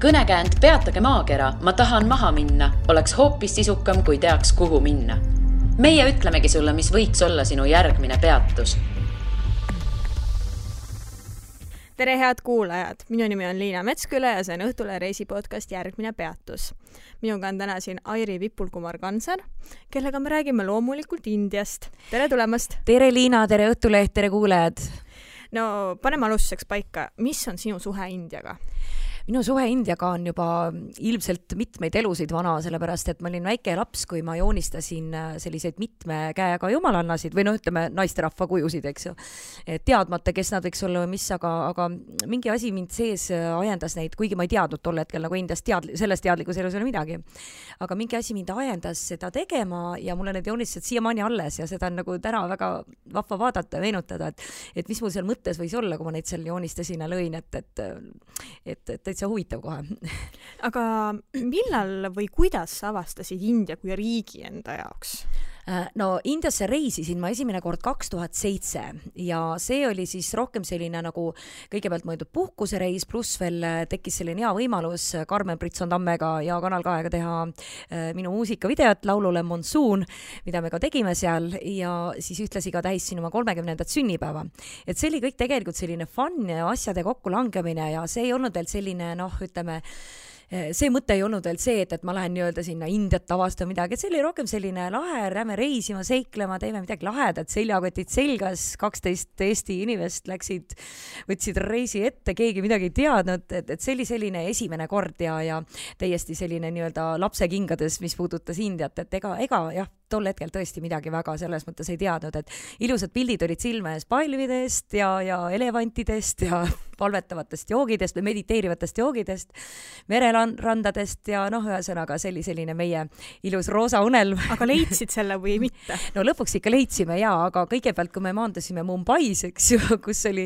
Kõnekäänd Peatage maakera, ma tahan maha minna, oleks hoopis sisukam, kui teaks, kuhu minna. Meie ütlemegi sulle, mis võiks olla sinu järgmine peatus. Tere head kuulajad, minu nimi on Liina Metsküle ja see on Õhtule reisipodcast Järgmine peatus. Minuga on täna siin Airi Vipul-Kumar-Kansar, kellega me räägime loomulikult Indiast. Tere tulemast! Tere Liina, tere Õhtuleht, tere kuulajad! No, paneme alustuseks paika. Mis on sinu suhe Indiaga? Minu suhe Indiaga on juba ilmselt mitmeid elusid vana, sellepärast et ma olin väike laps, kui ma joonistasin selliseid mitme käega jumalannasid või ütleme naisterahva kujusid, eks ju. Teadmata, kes nad võiks olla või mis, aga mingi asi mind sees ajendas neid, kuigi ma ei teadnud tol hetkel nagu Indiast sellest teadlikus elus ei ole midagi. Aga mingi asi mind ajendas seda tegema ja mulle need joonistused siiamaani alles ja seda on nagu täna väga vahva vaadata ja meenutada, et mis mul seal mõttes võis olla, kui ma neid seal joonistasin ja lõin, et täitsa huvitav kohe. Aga millal või kuidas sa avastasid India kui riigi enda jaoks? No Indiasse reisisin ma esimene kord 2007 ja see oli siis rohkem selline nagu kõigepealt mõeldud puhkusereis, pluss veel tekkis selline hea võimalus Karmen Britson-Tammega ja Kanal 2-ga teha minu muusikavideot laulule Monsoon, mida me ka tegime seal ja siis ühtlasi ka tähistasin oma 30. sünnipäeva. Et see oli kõik tegelikult selline fun ja asjade kokkulangemine ja see ei olnud veel selline, ütleme, see mõte ei olnud veel see, et ma lähen nii-öelda sinna Indiat avastama midagi, et see oli rohkem selline lahe, lähme reisima, seiklema, teeme midagi lahedat, seljakotid selgas, 12 Eesti inimest võtsid reisi ette, keegi midagi ei teadnud, et see oli selline esimene kord ja täiesti selline nii-öelda lapse kingades, mis puudutas Indiat, et ega jah, tol hetkel tõesti midagi väga selles mõttes ei teadnud, et ilusad pildid olid silme ees palvidest ja elevantidest ja palvetavatest joogidest või mediteerivatest joogidest, mererandadest ja ühesõnaga selline meie ilus roosa unelm. Aga leidsid selle või mitte? No lõpuks ikka leidsime aga kõigepealt, kui me maandasime Mumbais, eks ju, kus oli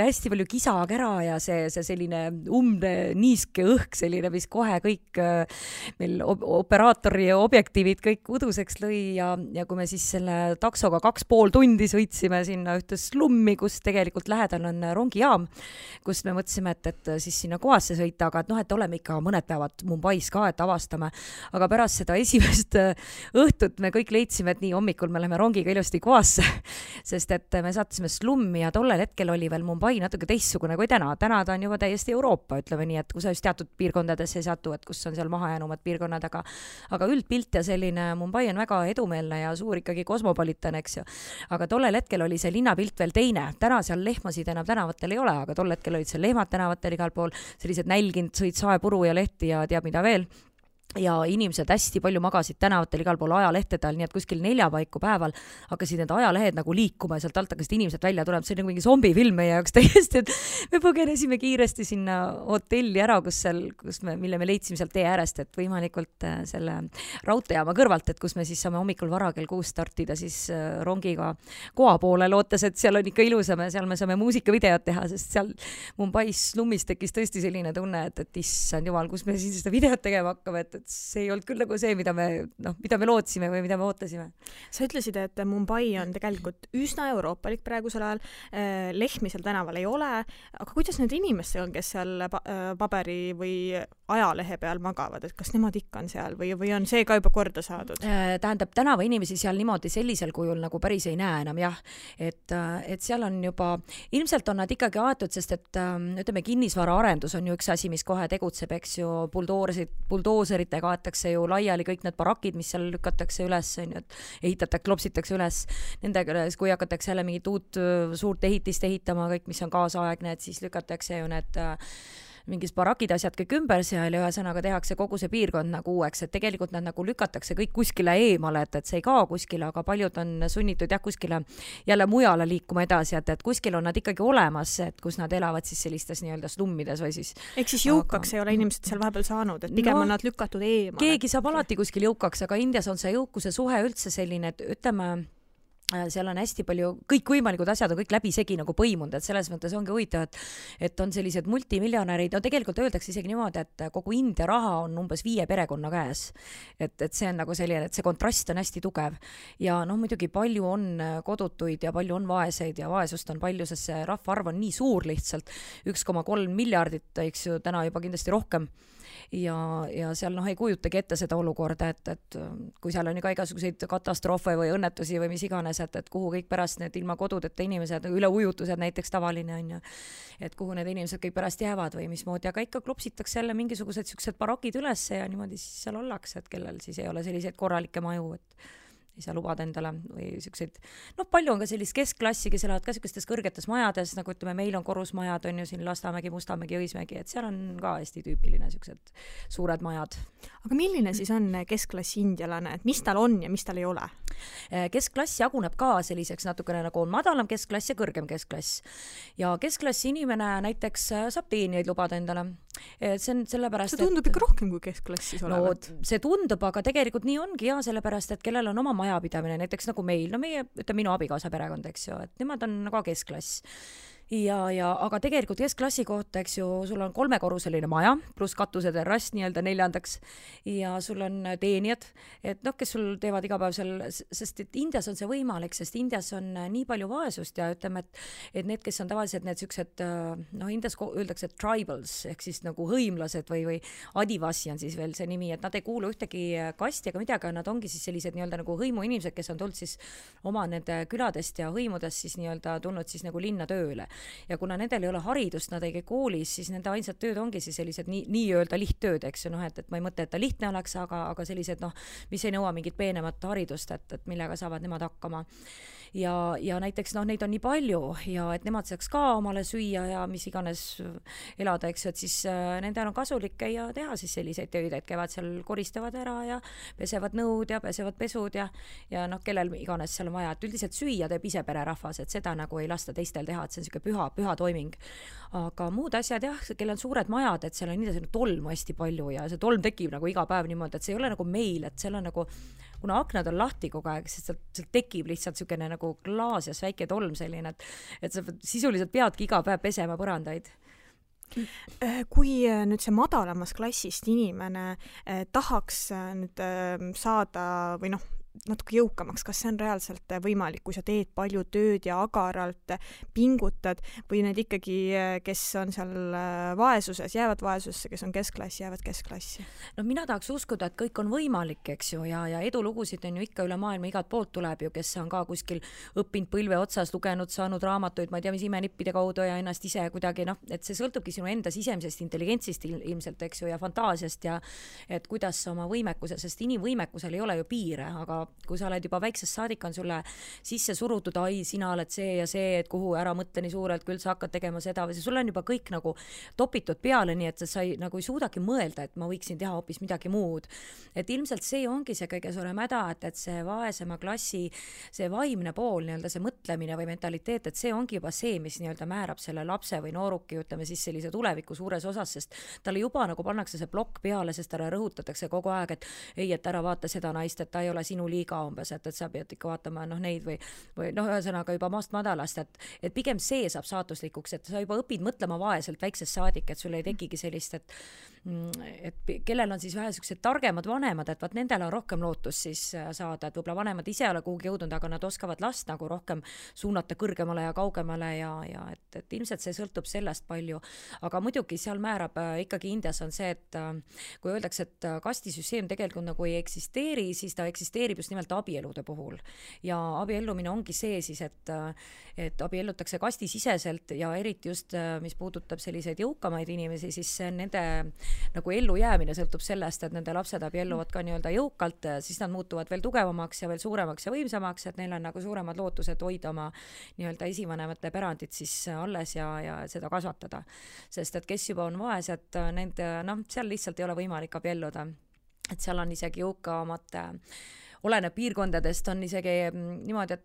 hästi palju kisa-kära ja see selline niiske õhk selline, mis kohe kõik meil operaatori ja objektiivid kõik uduseks lõi ja kui me siis selle taksoga 2,5 tundi sõitsime sinna ühte slummi, kus tegelikult lähedal on rongijaam, kus me mõtlesime, et siis sinna kohasse sõita, aga et oleme ikka mõned päevad Mumbais ka, et avastame. Aga pärast seda esimest õhtut me kõik leidsime, et nii hommikul me läheme rongiga ilusti kohasse, sest et me saatsime slummi ja tollel hetkel oli veel Mumbai natuke teistsugune kui täna. Täna ta on juba täiesti Euroopa, ütleme nii, et kui sa just teatud piirkondadesse ei satu, et kus on seal mahajäänumad piirkonnad, aga üldpilt ja selline Mumbai on väga edumeelne ja suur ikkagi kosmopolitan, eks ju. Aga tollel hetkel oli see linnapilt veel teine. Täna seal lehmasid enam tänavatel ei ole, aga tol hetkel olid seal lehmad tänavatel igal pool, sellised nälginud sõid saepuru ja lehti ja teab mida veel. Ja inimesed hästi palju magasid tänavatel igal pool ajalehtedel, nii et kuskil 4 paiku päeval hakkasid need ajalehed nagu liikuma ja sealt alt hakkasid inimesed välja tulema. See oli nagu mingi zombifilm meie jaoks täiesti, et me põgenesime kiiresti sinna hotelli ära, mille me leidsime sealt tee äärest, et võimalikult selle raudteejaama kõrvalt, et kus me siis saame hommikul vara kell 6 startida siis rongiga koha poole, lootes, et seal on ikka ilusam ja seal me saame muusikavideot teha, sest seal Mumbais slummis tekkis tõesti selline tunne, et issand jumal, kus me siis seda videot tegema hakkame, et see ei olnud küll nagu see, mida me lootsime või mida me ootasime. Sa ütlesid, et Mumbai on tegelikult üsna euroopalik praegusel ajal, lehmi seal tänaval ei ole, aga kuidas need inimesed on, kes seal paberi või ajalehe peal magavad, et kas nemad ikka on seal või on see ka juba korda saadud? Tähendab, tänava inimesi seal niimoodi sellisel kujul nagu päris ei näe enam, jah. Et seal on juba, ilmselt on nad ikkagi aetud, sest et ütleme, kinnisvara arendus on ju üks asi, mis kohe tegutseb, eks ju, buldooseritega aetakse ju laiali kõik need barakid, mis seal lükatakse üles, klopsitakse üles nendega, kui hakatakse jälle mingit uut suurt ehitist ehitama, kõik, mis on kaasaegne, et siis lükatakse ju need mingis barakid asjad kõik ümber seal ja ühesõnaga tehakse kogu see piirkond nagu uueks, et tegelikult nad nagu lükatakse kõik kuskile eemale, et see ei kao kuskile, aga paljud on sunnitud kuskile jälle mujale liikuma edasi, et kuskil on nad ikkagi olemas, et kus nad elavad siis sellistes nii-öelda slummides või siis. Ehk siis jõukaks ei ole inimesed seal vahepeal saanud, et pigem on nad lükatud eemale. Keegi saab alati kuskil jõukaks, aga Indias on see jõukuse suhe üldse selline, et ütleme, seal on hästi palju, kõikvõimalikud asjad on kõik läbisegi nagu põimunud, et selles mõttes ongi huvitav, et on sellised multimiljonärid, no tegelikult öeldakse isegi niimoodi, et kogu India raha on umbes 5 perekonna käes. Et see on nagu selline, et see kontrast on hästi tugev. Ja noh, muidugi palju on kodutuid ja palju on vaeseid ja vaesust on palju, sest see rahvaarv on nii suur lihtsalt, 1,3 miljardit, eks ju, täna juba kindlasti rohkem. Ja seal ei kujutagi ette seda olukorda, et kui seal on ka igasuguseid katastroofe või õnnetusi või mis iganes, et kuhu kõik pärast need ilma kodudeta inimesed, üleujutused näiteks tavaline on ju, et kuhu need inimesed kõik pärast jäävad või mismoodi, aga ikka klopsitakse jälle mingisugused siuksed barakid üles ja niimoodi siis seal ollakse, et kellel siis ei ole selliseid korralikke maju, et ei saa lubada endale või siukseid, palju on ka sellist keskklassi, kes elavad ka siukestes kõrgetes majades, nagu ütleme, meil on korrusmajad, on ju siin Lasnamägi, Mustamägi, Õismägi, et seal on ka hästi tüüpiline siuksed suured majad. Aga milline siis on keskklassi indialane, et mis tal on ja mis tal ei ole? Keskklass jaguneb ka selliseks natukene nagu on madalam keskklass ja kõrgem keskklass. Ja keskklassi inimene näiteks saab teenijaid lubada endale. See on sellepärast, see tundub ikka rohkem kui keskklassis olevat. No, see tundub, aga tegelikult nii ongi ja sellepärast, et kellel on oma majapidamine, näiteks nagu meil, no meie, minu abikaasa perekond, eks ju, et nemad on ka keskklass. Aga tegelikult keskklassi kohta, eks ju, sul on 3-korruseline maja, pluss katuseterrass nii-öelda 4. ja sul on teenijad, et kes sul teevad iga päev seal, sest et Indias on see võimalik, sest Indias on nii palju vaesust ja ütleme, et need, kes on tavaliselt need siuksed, Indias öeldakse tribals, ehk siis nagu hõimlased või adivasi on siis veel see nimi, et nad ei kuulu ühtegi kasti ega midagi, nad ongi siis sellised nii-öelda nagu hõimuinimesed, kes on tulnud siis oma nende küladest ja hõimudest siis nii-öelda tulnud siis nagu linna tööle. Ja kuna nendel ei ole haridust, nad ei käi koolis, siis nende ainsad tööd ongi siis sellised nii-öelda lihttööd, eks ju, et ma ei mõtle, et ta lihtne oleks, aga sellised, mis ei nõua mingit peenemat haridust, et millega saavad nemad hakkama. Ja näiteks neid on nii palju ja et nemad saaks ka omale süüa ja mis iganes elada, eks ju, et siis nendel on kasulik käia teha siis selliseid töid, et käivad seal, koristavad ära ja pesevad nõud ja pesevad pesud ja kellel iganes seal on vaja, et üldiselt süüa teeb ise pererahvas, et seda nagu ei lasta teistel teha, et see on siuke püha toiming. Aga muud asjad jah, kellel on suured majad, et seal on nii tolmu hästi palju ja see tolm tekib nagu iga päev niimoodi, et see ei ole nagu meil, et seal on nagu, kuna aknad on lahti kogu aeg, siis sealt tekib lihtsalt siukene nagu klaasias väike tolm selline, et sa sisuliselt peadki iga päev pesema põrandaid. Kui nüüd see madalamas klassist inimene tahaks nüüd saada või natuke jõukamaks, kas see on reaalselt võimalik, kui sa teed palju tööd ja agaralt pingutad või need ikkagi, kes on seal vaesuses, jäävad vaesusse, kes on keskklassi, jäävad keskklassi? No mina tahaks uskuda, et kõik on võimalik, eks ju, ja edulugusid on ju ikka üle maailma igalt poolt tuleb ju, kes on ka kuskil õppinud põlve otsas, lugenud, saanud raamatuid, ma ei tea, mis imenippide kaudu ja ennast ise kuidagi, et see sõltubki sinu enda sisemisest intelligentsist ilmselt, eks ju, ja fantaasiast ja et kuidas sa oma võimekuse, sest inimvõimekusel ei ole ju piire, aga kui sa oled juba väiksest saadik, on sulle sisse surutud, sina oled see ja see, et kuhu ära mõtle nii suurelt, küll sa hakkad tegema seda või sulle on juba kõik nagu topitud peale, nii et sa nagu ei suudagi mõelda, et ma võiksin teha hoopis midagi muud. Et ilmselt see ongi see kõige suurem häda, et see vaesema klassi, see vaimne pool, nii-öelda see mõtlemine või mentaliteet, et see ongi juba see, mis nii-öelda määrab selle lapse või nooruki, ütleme siis sellise tuleviku suures osas, sest talle juba nagu pannakse see plokk peale, sest talle rõhutatakse kogu aeg, et ei, et ära vaata seda naist, et ta ei ole sinu liiga umbes, et sa pead ikka vaatama neid või ühesõnaga juba maast madalast, et pigem see saab saatuslikuks, et sa juba õpid mõtlema vaeselt väiksest saadik, et sul ei tekigi sellist, et kellel on siis vähe sellised targemad vanemad, et vaat nendel on rohkem lootus siis saada, et võib-olla vanemad ise ei ole kuhugi jõudnud, aga nad oskavad last nagu rohkem suunata kõrgemale ja kaugemale ja et ilmselt see sõltub sellest palju, aga muidugi seal määrab ikkagi Indias on see, et kui öeldakse, et kastisüsteem tegelikult nagu ei eksisteeri, siis ta eksisteerib just nimelt abielude puhul ja abiellumine ongi see siis, et abiellutakse kastisiseselt ja eriti just, mis puudutab selliseid jõukamaid inimesi, siis nende nagu ellujäämine sõltub sellest, et nende lapsed abielluvad ka nii-öelda jõukalt, siis nad muutuvad veel tugevamaks ja veel suuremaks ja võimsamaks, et neil on nagu suuremad lootused hoida oma nii-öelda esivanemate pärandit siis alles ja seda kasvatada. Sest et kes juba on vaesed, nende, seal lihtsalt ei ole võimalik abielluda. Et seal on isegi jõukamate, oleneb piirkondadest, on isegi niimoodi, et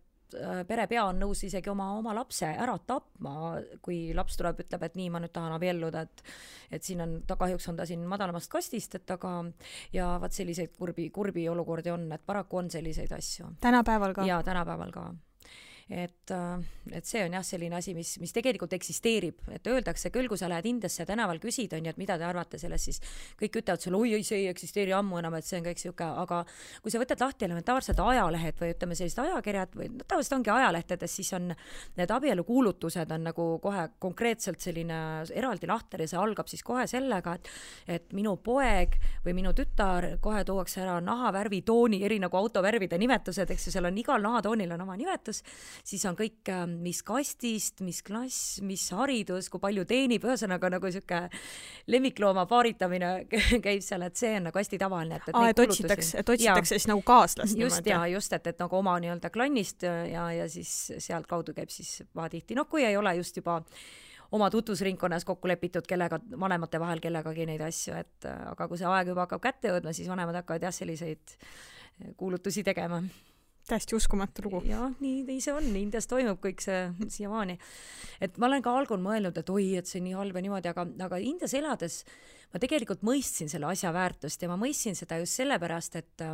perepea on nõus isegi oma lapse ära tapma, kui laps tuleb, ütleb, et nii, ma nüüd tahan abielluda, et siin on, kahjuks on ta siin madalamast kastist, et aga ja vaat selliseid kurbi olukordi on, et paraku on selliseid asju. Tänapäeval ka? Jaa, tänapäeval ka. et see on jah selline asi, mis tegelikult eksisteerib, et öeldakse küll, kui sa lähed Indiasse tänaval küsid, on ju, et mida te arvate sellest, siis kõik ütlevad sulle, oi, see ei eksisteeri ammu enam, et see on kõik siuke, aga kui sa võtad lahti elementaarsed ajalehed või ütleme sellised ajakirjad või tavaliselt ongi ajalehtedes, siis on need abielukuulutused on nagu kohe konkreetselt selline eraldi lahter ja see algab siis kohe sellega, et minu poeg või minu tütar, kohe tuuakse ära nahavärvi tooni, eri nagu autovärvide nimetused, eks ju, seal on igal nahatoonil on oma nimetus, siis on kõik, mis kastist, mis klass, mis haridus, kui palju teenib, ühesõnaga nagu siuke lemmiklooma paaritamine käib seal, et see on nagu hästi tavaline. Et otsitakse siis nagu kaaslast. Just, et nagu oma nii-öelda klannist ja siis sealt kaudu käib siis vaatihti. No kui ei ole just juba oma tutvusringkonnas kokku lepitud kellega, vanemate vahel kellegagi neid asju, et aga kui see aeg juba hakkab kätte jõudma, siis vanemad hakkavad jah selliseid kuulutusi tegema. Täiesti uskumatu lugu. Jah, nii see on, Indias toimub kõik see siiamaani. Et ma olen ka algul mõelnud, et oi, et see nii halb ja niimoodi, aga Indias elades ma tegelikult mõistsin selle asja väärtust ja ma mõistsin seda just sellepärast, et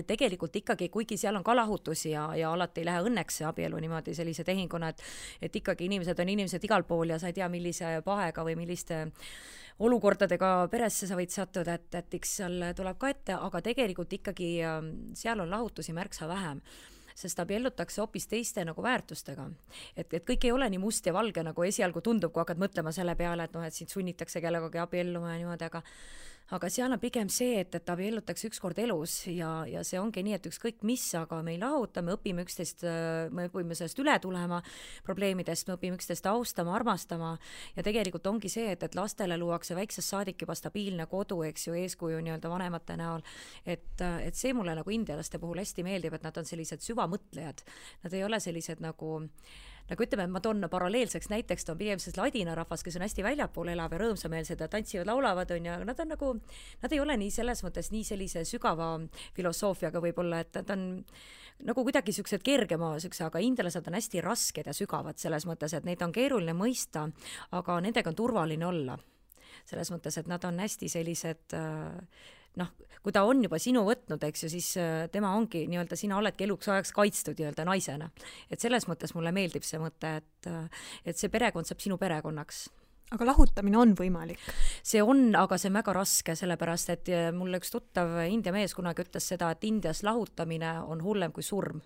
tegelikult ikkagi, kuigi seal on ka lahutusi ja alati ei lähe õnneks see abielu niimoodi sellise tehinguna, et ikkagi inimesed on inimesed igal pool ja sa ei tea, millise pahega või milliste olukordadega peresse sa võid sattuda, et eks seal tuleb ka ette, aga tegelikult ikkagi seal on lahutusi märksa vähem, sest abiellutakse hoopis teiste nagu väärtustega. Et kõik ei ole nii must ja valge, nagu esialgu tundub, kui hakkad mõtlema selle peale, et sind sunnitakse kellegagi abielluma ja niimoodi, aga seal on pigem see, et abiellutakse ükskord elus ja see ongi nii, et ükskõik mis, aga me ei lahuta, me õpime üksteist, me õpime sellest üle tulema probleemidest, me õpime üksteist austama, armastama ja tegelikult ongi see, et lastele luuakse väiksest saadik juba stabiilne kodu, eks ju, eeskuju nii-öelda vanemate näol, et see mulle nagu indialaste puhul hästi meeldib, et nad on sellised süvamõtlejad, nad ei ole sellised nagu ütleme, ma toon paralleelseks näiteks, on pigem ladina rahvas, kes on hästi väljapool elav ja rõõmsameelsed ja tantsivad, laulavad, on ja nad on nagu, nad ei ole nii selles mõttes nii sellise sügava filosoofiaga võib-olla, et nad on nagu kuidagi siuksed kergema, aga indialased on hästi rasked ja sügavad selles mõttes, et neid on keeruline mõista, aga nendega on turvaline olla. Selles mõttes, et nad on hästi sellised kui ta on juba sinu võtnud, eks ju, siis tema ongi nii-öelda, sina oledki eluks ajaks kaitstud nii-öelda naisena. Et selles mõttes mulle meeldib see mõte, et see perekond saab sinu perekonnaks. Aga lahutamine on võimalik? See on, aga see on väga raske, sellepärast, et mulle üks tuttav India mees kunagi ütles seda, et Indias lahutamine on hullem kui surm.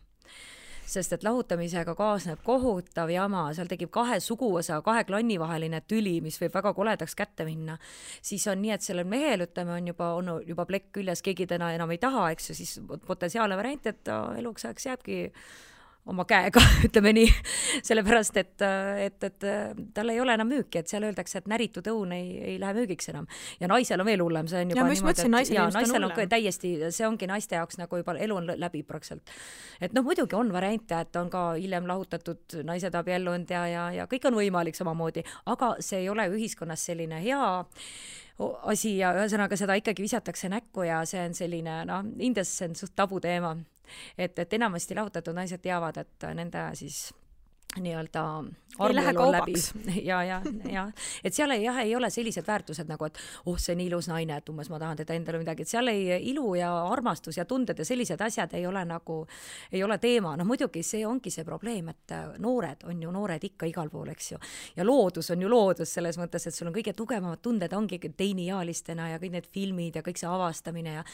Sest et lahutamisega kaasneb kohutav jama, seal tekib 2 suguvõsa, 2 klanni vaheline tüli, mis võib väga koledaks kätte minna. Siis on nii, et sellel mehel, ütleme, on juba plekk küljes, keegi täna enam ei taha, eks ju, siis potentsiaalne variant, et eluks ajaks jääbki oma käega, ütleme nii, sellepärast, et tal ei ole enam müüki, et seal öeldakse, et näritud õun ei lähe müügiks enam. Ja naisel on veel hullem, see on juba niimoodi, naisel on täiesti, see ongi naiste jaoks nagu juba elu on läbi praktiliselt. Et muidugi on variante, et on ka hiljem lahutatud naised abiellunud ja kõik on võimalik samamoodi, aga see ei ole ühiskonnas selline hea asi ja ühesõnaga seda ikkagi visatakse näkku ja see on selline, Indias see on suht tabu teema. Et enamasti lahutatud naised teavad, et nende siis nii-öelda armuelu on läbi. Ja. Et seal ei ole sellised väärtused nagu, et see on nii ilus naine, et umbes ma tahan teda endale midagi, et seal ilu ja armastus ja tunded ja sellised asjad ei ole teema. Muidugi see ongi see probleem, et noored on ju noored ikka igal pool, eks ju. Ja loodus on ju loodus selles mõttes, et sul on kõige tugevamad tunded ongi teiniaalistena ja kõik need filmid ja kõik see avastamine ja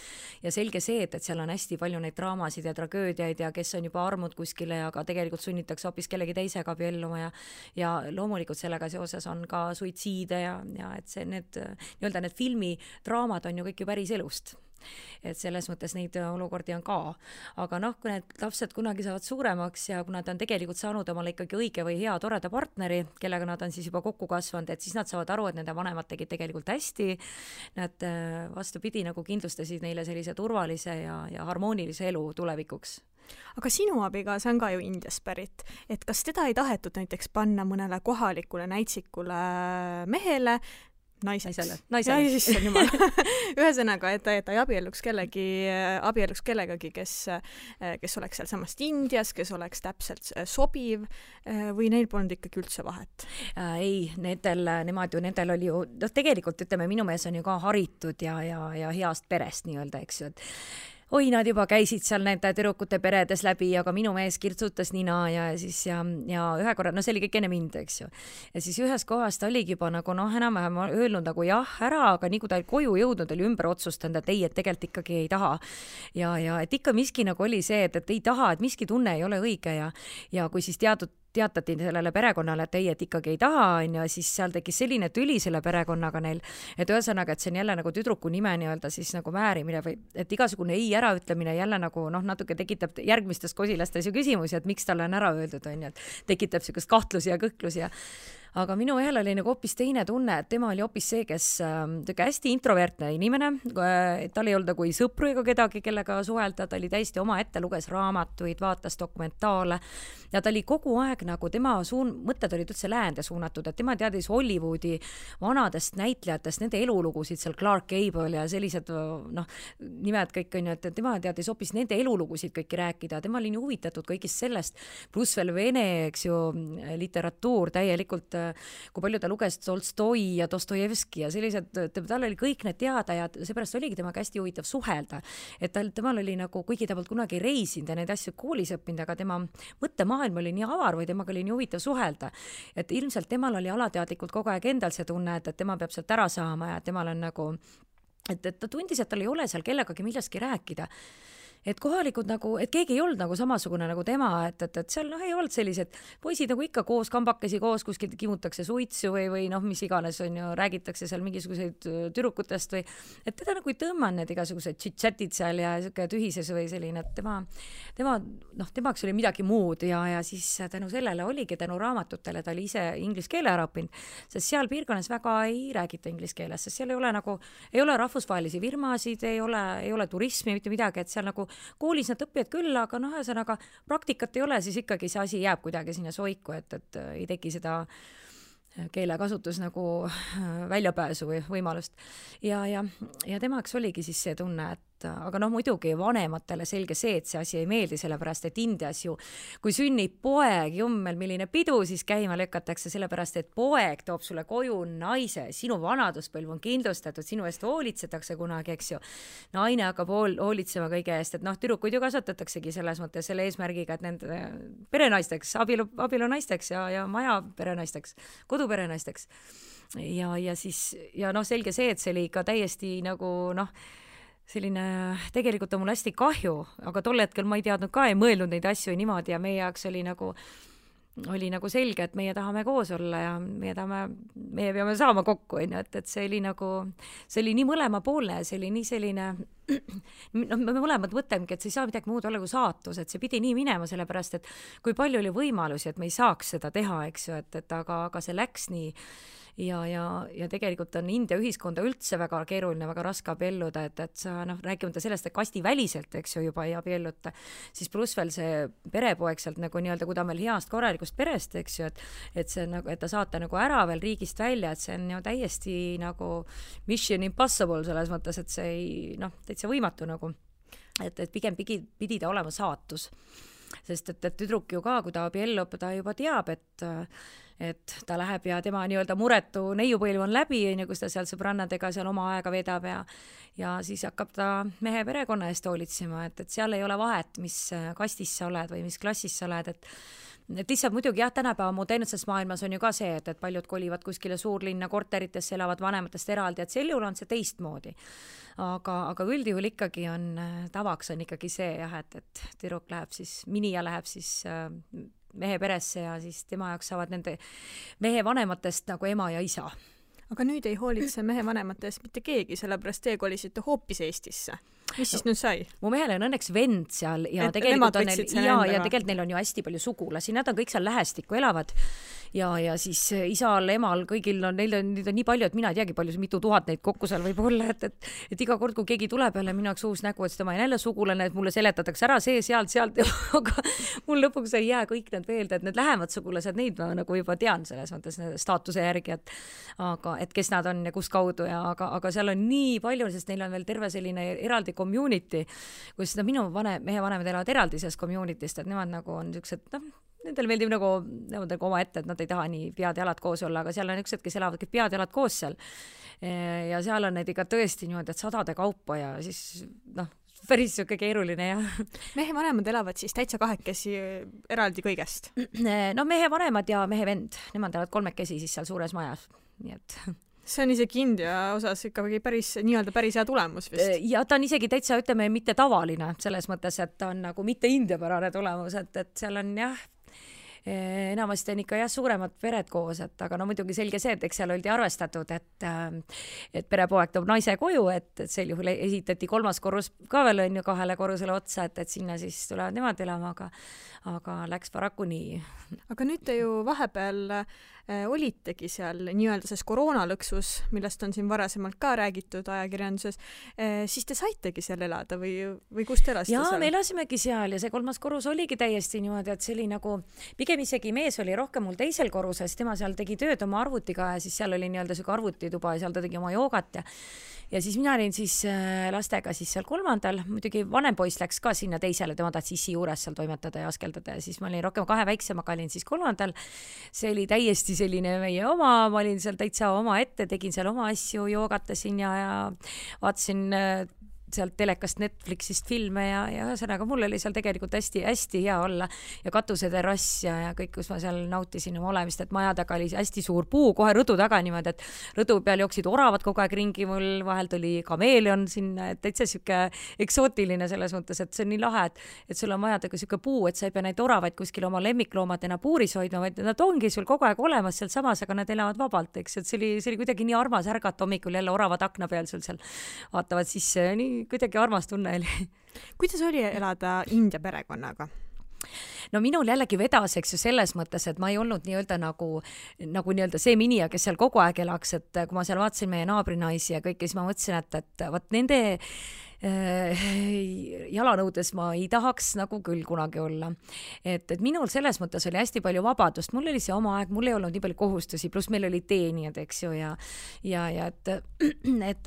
selge see, et seal on hästi palju neid draamasid ja tragöödiaid ja kes on juba armud kuskile, aga tegelikult sunnitakse hoopis kellegi teisega abielluma ja loomulikult sellega seoses on ka suitsiide ja et see need filmidraamad on ju kõik ju päris elust. Et selles mõttes neid olukordi on ka. Aga kui need lapsed kunagi saavad suuremaks ja kui nad on tegelikult saanud omale ikkagi õige või hea toreda partneri, kellega nad on siis juba kokku kasvanud, et siis nad saavad aru, et nende vanemad tegid tegelikult hästi. Nad vastupidi nagu kindlustasid neile sellise turvalise ja harmoonilise elu tulevikuks. Aga sinu abikaasa on ka ju Indiast pärit, et kas teda ei tahetud näiteks panna mõnele kohalikule näitsikule mehele, naisele. Ühesõnaga, et ta ei abielluks kellegagi, kes oleks seal samast Indias, kes oleks täpselt sobiv või neil polnud ikkagi üldse vahet? Ei, nendel oli ju, tegelikult ütleme, minu mees on ju ka haritud ja heast perest nii-öelda, eks ju, oi, nad juba käisid seal nende tüdrukute peredes läbi, aga minu mees kirtsutas nina ja siis ja ühe korra, no see oli kõik enne mind, eks ju. Ja siis ühes kohas ta oligi juba nagu enam-vähem öelnud nagu jah, ära, aga nii kui ta koju jõudnud, oli ümber otsustanud, et ei, et tegelikult ikkagi ei taha. Ja et ikka miski nagu oli see, et ei taha, et miski tunne ei ole õige ja kui siis teatati sellele perekonnale, et ei, et ikkagi ei taha, on ju, siis seal tekkis selline tüli selle perekonnaga neil, et ühesõnaga, et see on jälle nagu tüdruku nime nii-öelda siis nagu määrimine või et igasugune ei äraütlemine jälle nagu natuke tekitab järgmistes kosilastes ju küsimusi, et miks talle on ära öeldud, on ju, et tekitab sellist kahtlusi ja kõhklusi aga minu mehel oli nagu hoopis teine tunne, et tema oli hoopis see, kes hästi introvertne inimene, tal ei olnud nagu sõpru ega kedagi, kellega suhelda, ta oli täiesti omaette, luges raamatuid, vaatas dokumentaale ja ta oli kogu aeg nagu tema mõtted olid üldse läände suunatud, et tema teadis Hollywoodi vanadest näitlejatest, nende elulugusid, seal Clark Gable ja sellised nimed kõik on ju, et tema teadis hoopis nende elulugusid kõiki rääkida, tema oli nii huvitatud kõigist sellest, pluss veel vene, eks ju, literatuur täielikult kui palju ta luges Tolstoi ja Dostojevski ja sellised, tal oli kõik need teada ja seepärast oligi temaga hästi huvitav suhelda, et temal oli nagu, kuigi ta polnud kunagi reisinud ja neid asju koolis õppinud, aga tema mõttemaailm oli nii avar või temaga oli nii huvitav suhelda, et ilmselt temal oli alateadlikult kogu aeg endal see tunne, et tema peab sealt ära saama ja temal on nagu, et ta tundis, et tal ei ole seal kellegagi millestki rääkida. Et kohalikud nagu, et keegi ei olnud nagu samasugune nagu tema, et seal ei olnud sellised poisid nagu ikka koos, kambakesi koos, kuskil kimutakse suitsu või mis iganes on ju, räägitakse seal mingisuguseid tüdrukutest või, et teda nagu ei tõmmanud need igasugused chit-chatid seal ja tühises või selline, et temaks oli midagi muud ja siis tänu sellele oligi tänu raamatutele, ta oli ise inglise keele ära õppinud, sest seal piirkonnas väga ei räägita inglise keeles, sest seal ei ole rahvusvahelisi firmasid, ei ole turismi, mitte midagi, et seal nagu koolis nad õppivad küll, aga ühesõnaga praktikat ei ole, siis ikkagi see asi jääb kuidagi sinna soiku, et ei teki seda keelekasutus nagu väljapääsu või võimalust. Ja temaks oligi siis see tunne, et aga muidugi vanematele selge see, et see asi ei meeldi, sellepärast et Indias ju, kui sünnib poeg, jummel, milline pidu, siis käima lükatakse, sellepärast et poeg toob sulle koju naise, sinu vanaduspõlv on kindlustatud, sinu eest hoolitsetakse kunagi, eks ju. Naine hakkab hoolitsema kõige eest, et tüdrukuid ju kasvatataksegi selles mõttes selle eesmärgiga, et nende perenaisteks, abielunaisteks ja maja perenaisteks, koduperenaisteks. Ja siis, selge see, et see oli ikka täiesti nagu selline, tegelikult on mul hästi kahju, aga tol hetkel ma ei teadnud ka, ei mõelnud neid asju niimoodi ja meie jaoks oli nagu selge, et meie tahame koos olla ja meie peame saama kokku, et see oli nii mõlemapoolne, see oli nii selline, me mõlemad mõtlemegi, et see ei saa midagi muud olla kui saatus, et see pidi nii minema, sellepärast, et kui palju oli võimalusi, et me ei saaks seda teha, eks ju, aga see läks nii ja tegelikult on India ühiskonda üldse väga keeruline, väga raske abielluda, et sa rääkimata sellest, et kastiväliselt, eks ju, juba ei abielluta, siis pluss veel see perepoeg sealt nagu nii-öelda, kui ta on veel heast korralikust perest, eks ju, et see nagu, et ta saata nagu ära veel riigist välja, et see on ju täiesti nagu mission impossible selles mõttes, et see ei, täitsa võimatu nagu, et pigem pidi ta olema saatus, sest et tüdruk ju ka, kui ta abiellub, ta juba teab, et ta läheb ja tema nii-öelda muretu neiupõlv on läbi, kus ta seal sõbrannadega seal oma aega vedab ja siis hakkab ta mehe perekonna eest hoolitsema, et seal ei ole vahet, mis kastis sa oled või mis klassis sa oled, et lihtsalt muidugi jah, tänapäeva modernses maailmas on ju ka see, et paljud kolivad kuskile suurlinna korteritesse, elavad vanematest eraldi, et sel juhul on see teistmoodi. Aga üldjuhul ikkagi tavaks on ikkagi see jah, et tüdruk läheb siis, minija läheb siis mehe peresse ja siis tema jaoks saavad nende mehe vanematest nagu ema ja isa. Aga nüüd ei hoolitse mehe vanematest mitte keegi, sellepärast te kolisite hoopis Eestisse. Mis siis nüüd sai? Mu mehel on õnneks vend seal ja tegelikult neil on ju hästi palju sugulasi, nad on kõik seal lähestikku elavad ja siis isal, emal, kõigil neil on nii palju, et mina ei teagi palju, mitu tuhat neid kokku seal võib olla, et iga kord, kui keegi tuleb jälle minu jaoks uus nägu, et tema on jälle sugulane, et mulle seletatakse ära see, sealt, aga mul lõpuks ei jää kõik need veelde, et need lähemad sugulased, neid ma nagu juba tean selles mõttes staatuse järgi, et kes nad on ja kus kaudu aga seal on nii palju, sest neil on veel terve selline eraldi community, kus minu mehe vanemad elavad eraldi sellest community'st, et nemad nagu on niisugused, nendel meeldib nagu oma ette, et nad ei taha nii pead ja jalad koos olla, aga seal on niisugused, kes elavad kõik pead ja jalad koos seal. Ja seal on need ikka tõesti niimoodi, et sadade kaupa ja siis päris siuke keeruline jah. Mehe vanemad elavad siis täitsa kahekesi eraldi kõigest? No mehe vanemad ja mehe vend, nemad elavad kolmekesi siis seal suures majas, nii et see on isegi India osas ikkagi päris hea tulemus vist. Ja ta on isegi täitsa, ütleme, mitte tavaline selles mõttes, et ta on nagu mitte indiapärane tulemus, et seal on jah, enamasti on ikka jah suuremad pered koos, et aga no muidugi selge see, et eks seal oldi arvestatud, et perepoeg toob naise koju, et sel juhul esitati 3. korrus ka veel on ju 2 korrusele otsa, et sinna siis tulevad nemad elama, aga läks paraku nii. Aga nüüd te ju vahepeal olitegi seal nii-öelda selles koroonalõksus, millest on siin varasemalt ka räägitud ajakirjanduses, siis te saitegi seal elada või kus te elasite seal? Jaa, me elasimegi seal ja see 3. korrus oligi täiesti niimoodi, et see oli nagu, pigem isegi mees oli rohkem mul 2. korruses, tema seal tegi tööd oma arvutiga ja siis seal oli nii-öelda süga arvutituba ja seal ta tegi oma joogat ja siis mina olin siis lastega siis seal 3. muidugi vanem poiss läks ka sinna 2., tema tahtis issi juures seal toimetada ja askeldada ja siis ma olin rohkem 2 väiksemaga, olin siis 3. See oli täiesti selline meie oma, ma olin seal täitsa oma ette, tegin seal oma asju, joogatasin ja vaatasin sealt telekast Netflixist filme ja ühesõnaga mul oli seal tegelikult hästi hea olla ja katuseterass ja kõik, kus ma seal nautisin oma olemist, et maja taga oli hästi suur puu kohe rõdu taga niimoodi, et rõdu peal jooksid oravad kogu aeg ringi, mul vahel tuli kameeleon sinna, et täitsa siuke eksootiline selles mõttes, et see on nii lahe, et sul on maja taga siuke puu, et sa ei pea neid oravaid kuskil oma lemmikloomadena puuris hoidma, vaid nad ongi sul kogu aeg olemas seal samas, aga nad elavad vabalt, eks, et see oli kuidagi nii armas ärgata hommikul jälle oravad akna peal sul seal vaatavad sisse, nii kuidagi armas tunne oli. Kuidas oli elada India perekonnaga? No minul jällegi vedas, eks ju, selles mõttes, et ma ei olnud nii-öelda nagu nii-öelda see minija, kes seal kogu aeg elaks, et kui ma seal vaatasin meie naabrinaisi ja kõike, siis ma mõtlesin, et vaat nende jalanõudes ma ei tahaks nagu küll kunagi olla. Et minul selles mõttes oli hästi palju vabadust, mul oli see oma aeg, mul ei olnud nii palju kohustusi, pluss meil oli teenijad, eks ju, ja et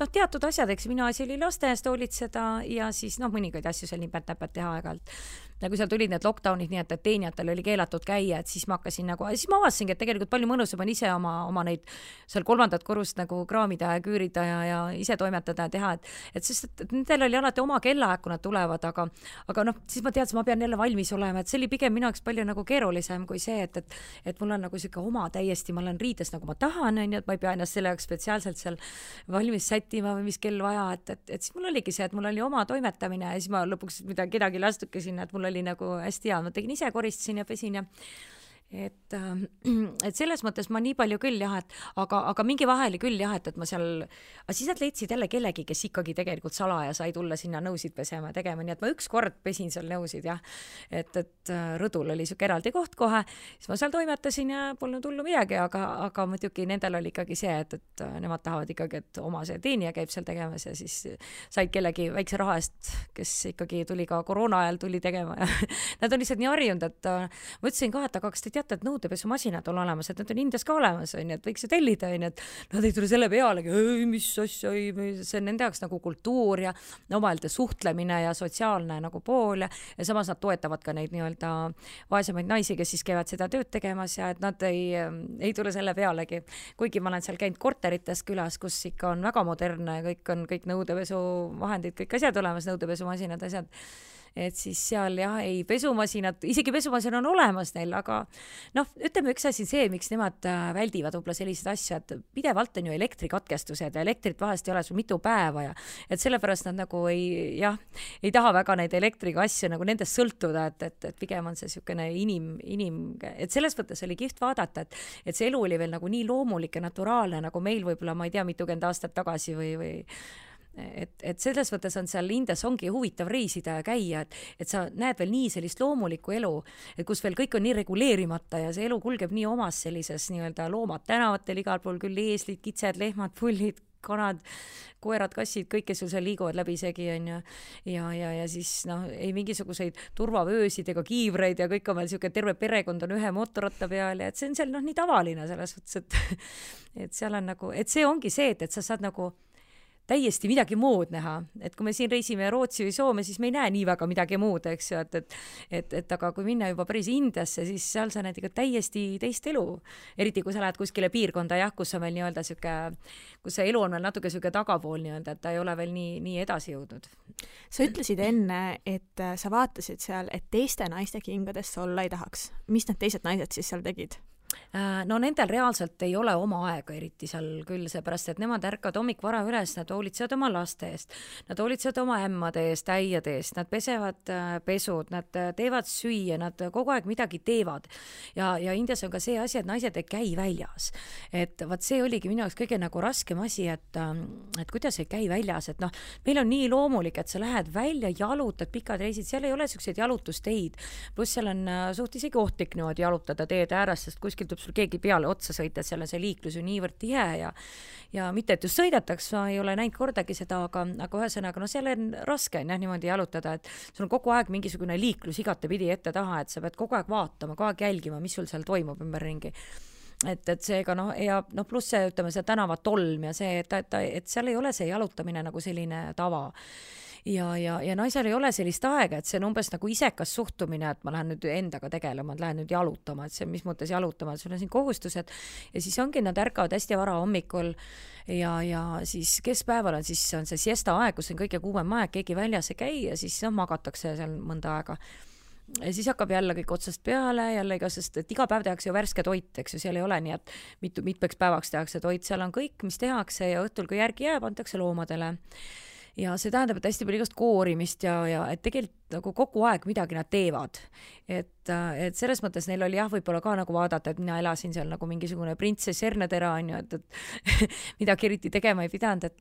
teatud asjad, eks minu asi oli laste eest hoolitseda ja siis mõningaid asju seal nipet-näpet teha aeg-ajalt. Nagu seal tulid need lockdownid, nii et teenijatel oli keelatud käia, et siis ma hakkasin siis ma avasingi, et tegelikult palju mõnusam on ise oma neid seal 3. korrust nagu kraamida ja küürida ja ise toimetada ja teha, et sest et nendel oli alati oma kellaaeg, kui nad tulevad, aga siis ma teadsin, ma pean jälle valmis olema, et see oli pigem minu jaoks palju nagu keerulisem kui see, et mul on nagu siuke oma täiesti, ma olen riides nagu ma tahan, on ju, et ma ei pea ennast selle jaoks spetsiaalselt seal valmis sättima või mis kell vaja, et siis mul oligi see, et mul oli oma toimetamine ja siis ma lõpuks kedagi lastuke sinna, et mul oli nagu hästi hea, ma tegin ise, koristasin ja pesin ja et selles mõttes ma nii palju küll jah, aga mingi vahel küll jah, et ma seal, siis nad leidsid jälle kellegi, kes ikkagi tegelikult salaja sai tulla sinna nõusid pesema ja tegema, nii et ma ükskord pesin seal nõusid jah, et rõdul oli siuke eraldi koht kohe, siis ma seal toimetasin ja polnud hullu midagi, aga muidugi nendel oli ikkagi see, et nemad tahavad ikkagi, et oma see teenija käib seal tegemas ja siis said kellegi väikse raha eest, kes ikkagi tuli ka koroona ajal tuli tegema ja nad on lihtsalt nii harjunud, et ma ütlesin ka, et aga kas te teate, et nõudepesumasinad on olemas, et need on Indias ka olemas, on, et võiks ju tellida, on, et nad ei tule selle pealegi, mis asja, see on nende jaoks nagu kultuur ja omavaheline suhtlemine ja sotsiaalne nagu pool ja samas nad toetavad ka neid nii-öelda vaesemaid naisi, kes siis käivad seda tööd tegemas ja et nad ei tule selle pealegi. Kuigi ma olen seal käinud korterites külas, kus ikka on väga modernne, kõik nõudepesuvahendid, kõik asjad olemas, nõudepesumasinad, asjad. Et siis seal jah, ei pesumasinad, isegi pesumasin on olemas neil, aga ütleme üks asi see, miks nemad väldivad võib-olla sellised asju, et pidevalt on ju elektrikatkestused ja elektrit vahest ei ole sul mitu päeva ja et sellepärast nad nagu ei taha väga neid elektriga asju nagu nendest sõltuda, et pigem on see niisugune et selles mõttes oli kihvt vaadata, et see elu oli veel nagu nii loomulik ja naturaalne, nagu meil võib-olla, ma ei tea, mitukümmend aastat tagasi või et selles mõttes on seal Indias ongi huvitav reisida ja käia, et sa näed veel nii sellist loomulikku elu, et kus veel kõik on nii reguleerimata ja see elu kulgeb nii omas sellises nii-öelda loomad tänavatel igal pool, küll eeslid, kitsed, lehmad, pullid, kanad, koerad, kassid, kõik, kes sul seal liiguvad läbisegi on ja siis ei mingisuguseid turvavöösid ega kiivreid ja kõik on veel siuke terve perekond on ühe mootorratta peal ja et see on seal nii tavaline selles mõttes, et seal on nagu, et see ongi see, et sa saad nagu täiesti midagi muud näha, et kui me siin reisime Rootsi või Soome, siis me ei näe nii väga midagi muud, eks ju, et aga kui minna juba päris Indiasse, siis seal sa näed ikka täiesti teist elu, eriti kui sa lähed kuskile piirkonda, kus on veel nii-öelda kus see elu on veel natuke tagapool nii-öelda, et ta ei ole veel nii edasi jõudnud. Sa ütlesid enne, et sa vaatasid seal, et teiste naiste kingadesse olla ei tahaks. Mis need teised naised siis seal tegid? No nendel reaalselt ei ole oma aega eriti seal küll, seepärast, et nemad ärkavad hommikvara üles, nad hoolitsevad oma laste eest, nad hoolitsevad oma ämmade eest, äiade eest, nad pesevad pesud, nad teevad süüa, nad kogu aeg midagi teevad. Ja Indias on ka see asi, et naised ei käi väljas. Et vaat see oligi minu jaoks kõige nagu raskem asi, et kuidas ei käi väljas, et noh, meil on nii loomulik, et sa lähed välja, jalutad pikad reisid, seal ei ole selliseid jalutusteid, pluss seal on suht isegi ohtlik niimoodi jalutada teed ääres, sest kuskil tuleb sul keegi peale otsa sõita, seal on see liiklus ju niivõrd tihe ja mitte, et just sõidetaks, ma ei ole näinud kordagi seda, aga ühesõnaga, no seal on raske niimoodi jalutada, et sul on kogu aeg mingisugune liiklus igatepidi ette taha, et sa pead kogu aeg vaatama, kogu aeg jälgima, mis sul seal toimub ümberringi. Et seega ja pluss see, ütleme, see tänavatolm ja see, et seal ei ole see jalutamine nagu selline tava. Ja naisel ei ole sellist aega, et see on umbes nagu isekas suhtumine, et ma lähen nüüd endaga tegelema, et lähen nüüd jalutama, et see mis mõttes jalutama, et sul on siin kohustused ja siis ongi, nad ärkavad hästi vara hommikul ja siis keskpäeval on siis on see siesta aeg, kus on kõige kuumem aeg, keegi väljas ei käi ja siis magatakse seal mõnda aega. Ja siis hakkab jälle kõik otsast peale, sest et iga päev tehakse ju värske toit, eks ju, seal ei ole nii, et mitmeks päevaks tehakse toit, seal on kõik, mis tehakse ja õhtul, kui järgi jääb, antakse loomadele. Ja see tähendab, et hästi palju igast koorimist ja et tegelikult nagu kogu aeg midagi nad teevad. Et selles mõttes neil oli võib-olla ka nagu vaadata, et mina elasin seal nagu mingisugune printsess Hernetera, on ju, et midagi eriti tegema ei pidanud,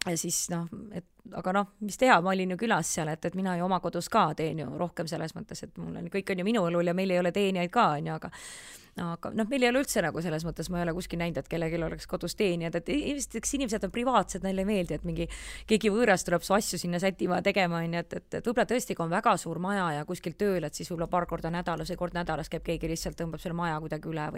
ja siis aga mis teha, ma olin ju külas seal, et mina ju oma kodus ka teen ju rohkem selles mõttes, et kõik on ju minu õlul ja meil ei ole teenijaid ka, on ju, aga meil ei ole üldse nagu selles mõttes, ma ei ole kuskil näinud, et kellelgi oleks kodus teenijad, et inimesed on privaatsed, neile ei meeldi, et keegi võõras tuleb su asju sinna sätima tegema, et võib-olla tõesti, kui on väga suur maja ja kuskil tööl, et siis võib-olla paar korda nädalas või kord nädalas käib keegi lihtsalt tõmbab selle maja kuidagi üle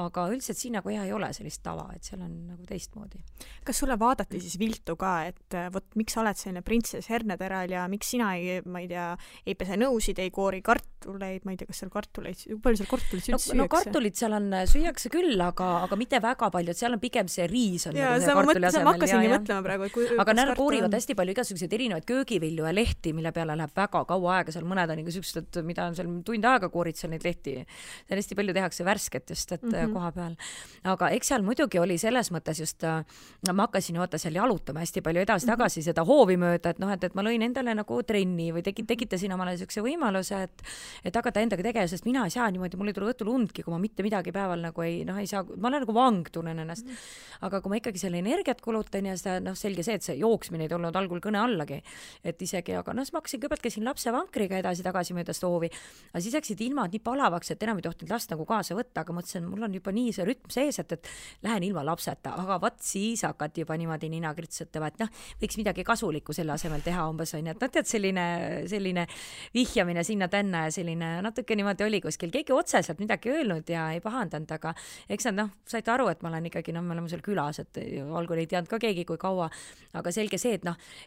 aga üldiselt siin nagu ei ole sellist tava, et seal on nagu teistmoodi. Kas sulle vaadati siis viltu ka, et miks sa oled selline printsess Herneteral ja miks sina ei pese nõusid, ei koori kartuleid, ma ei tea, kas seal kartuleid, palju seal kartuleid süüakse? Kartulit seal on, süüakse küll, aga mitte väga palju, et seal on pigem see riis on ja, nagu ma hakkasingi mõtlema praegu, aga nad koorivad hästi palju igasuguseid erinevaid köögivilju ja lehti, mille peale läheb väga kaua aega, seal mõned on sellised, mida on seal tund aega koorid seal neid lehti. Seal hästi palju tehakse värsket just, et koha peal. Aga eks seal muidugi oli selles mõttes just, ma hakkasin seal jalutama hästi palju edasi-tagasi seda hoovi mööda, et ma lõin endale nagu trenni või tekitasin omale niisuguse võimaluse, et hakata endaga tegema, sest mina ei saa niimoodi, mul ei tule õhtul undki, kui ma mitte midagi päeval nagu ei saa, ma olen nagu vang tunnen ennast. Aga kui ma ikkagi selle energiat kulutan ja seda, selge see, et see jooksmine ei tulnud algul kõne allagi, et isegi, aga ma hakkasin kõigepealt käisin lapse vankriga edasi-tagasi mööda stoovi, aga siis läksid ilmad nii palavaks, et enam ei tohtinud last nagu kaasa võtta, aga mõtlesin, mul on juba nii see rütm sees, et lähen ilma lapseta, aga vaat siis hakati juba niimoodi nina kritsutama, et võiks midagi kasulikku selle asemel teha umbes on, et tead selline vihjamine sinna tänna ja selline natuke niimoodi oli kuskil, keegi otseselt midagi öelnud ja ei pahandanud, aga eks nad saite aru, et ma olen ikkagi, me oleme seal külas, et algul ei teadnud ka keegi kui kaua, aga selge see,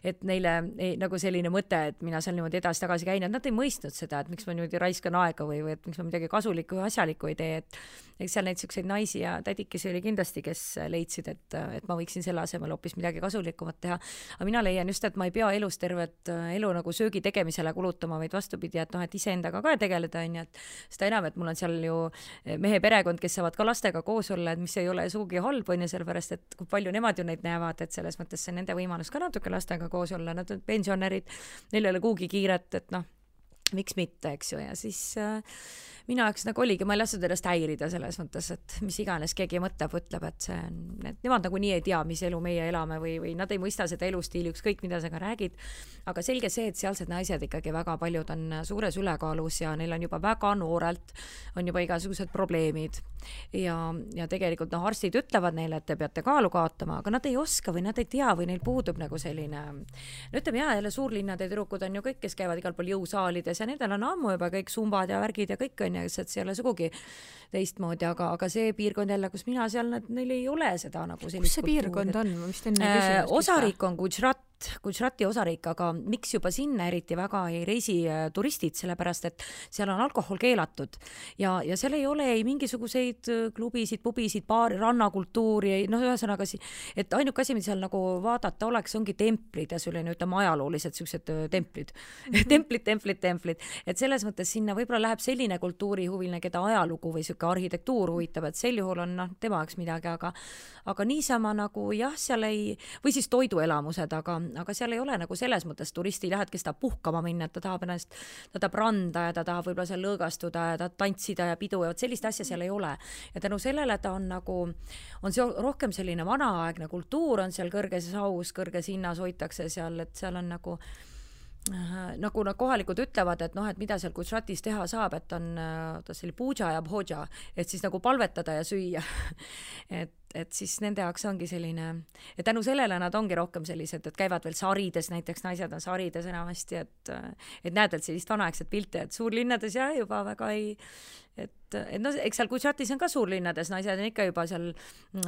et neile nagu selline mõte, et mina seal niimoodi edasi-tagasi käin, et nad ei mõistnud seda, et miks ma niimoodi raiskan aega või et miks ma midagi kasulikku ja asjalikku ei tee, et eks seal neid selliseid naisi ja tädikesi oli kindlasti, kes leidsid, et ma võiksin selle asemel hoopis midagi kasulikumat teha, aga mina leian just, et ma ei pea elus tervet elu nagu söögi tegemisele kulutama, vaid vastupidi, et iseendaga ka tegeleda, et seda enam, et mul on seal ju mehe perekond, kes saavad ka lastega koos olla, et mis ei ole sugugi halb, on ju, sellepärast, et kui palju nemad ju neid näevad, et selles mõttes see nende võimalus ka natuke lastega koos olla, nad on pensionärid, neil ei ole kuhugi kiiret, et miks mitte, eks ju, ja siis mina jaoks nagu oligi, ma ei lasknud ennast häirida selles mõttes, et mis iganes keegi mõtleb, ütleb, et nemad nagu nii ei tea, mis elu meie elame või nad ei mõista seda elustiili, ükskõik mida sa ka räägid, aga selge see, et sealsed naised ikkagi väga paljud on suures ülekaalus ja neil on juba väga noorelt, on juba igasugused probleemid ja tegelikult arstid ütlevad neile, et te peate kaalu kaotama, aga nad ei oska või nad ei tea või neil puudub nagu selline, ütleme jälle suurlinnade tüdrukud on ju kõik, kes käivad igal pool jõusaalides ja nendel on ammu juba kõik sumbad ja värgid ja kõik on ja et see ei ole sugugi teistmoodi, aga see piirkond jälle, kus mina seal, neil ei ole seda nagu sellist kus see piirkond on? Ma vist enne küsimust. Osariik on Gujarati osariik, aga miks juba sinna eriti väga ei reisi turistid, sellepärast et seal on alkohol keelatud ja seal ei ole ei mingisuguseid klubisid, pubisid, baari, rannakultuuri, ühesõnaga, et ainuke asi, mida seal nagu vaadata oleks, ongi templid ja selline, ütleme, ajaloolised sellised templid. templid. Et selles mõttes sinna võib-olla läheb selline kultuurihuviline, keda ajalugu või arhitektuur huvitab, et sel juhul on tema jaoks midagi, aga niisama nagu jah, seal ei, või siis toiduelamused, aga seal ei ole nagu selles mõttes turisti ei lähe, et kes tahab puhkama minna, et ta tahab randa ja ta tahab võib-olla seal lõõgastuda ja ta tantsida ja pidu ja sellist asja seal ei ole. Ja tänu sellele ta on nagu, on see rohkem selline vanaaegne kultuur, on seal kõrges haus, kõrges hinnas hoitakse seal, et seal on nagu nad kohalikud ütlevad, et et mida seal Gujaratis teha saab, et on selline puja ja bhoja, et siis nagu palvetada ja süüa. et siis nende jaoks ongi selline, et tänu sellele nad ongi rohkem sellised, et käivad veel sarides, näiteks naised on sarides enamasti, et näed veel sellist vanaegset pilte, et suurlinnades juba väga ei, et eks seal Gujaratis on ka suurlinnades, naised on ikka juba seal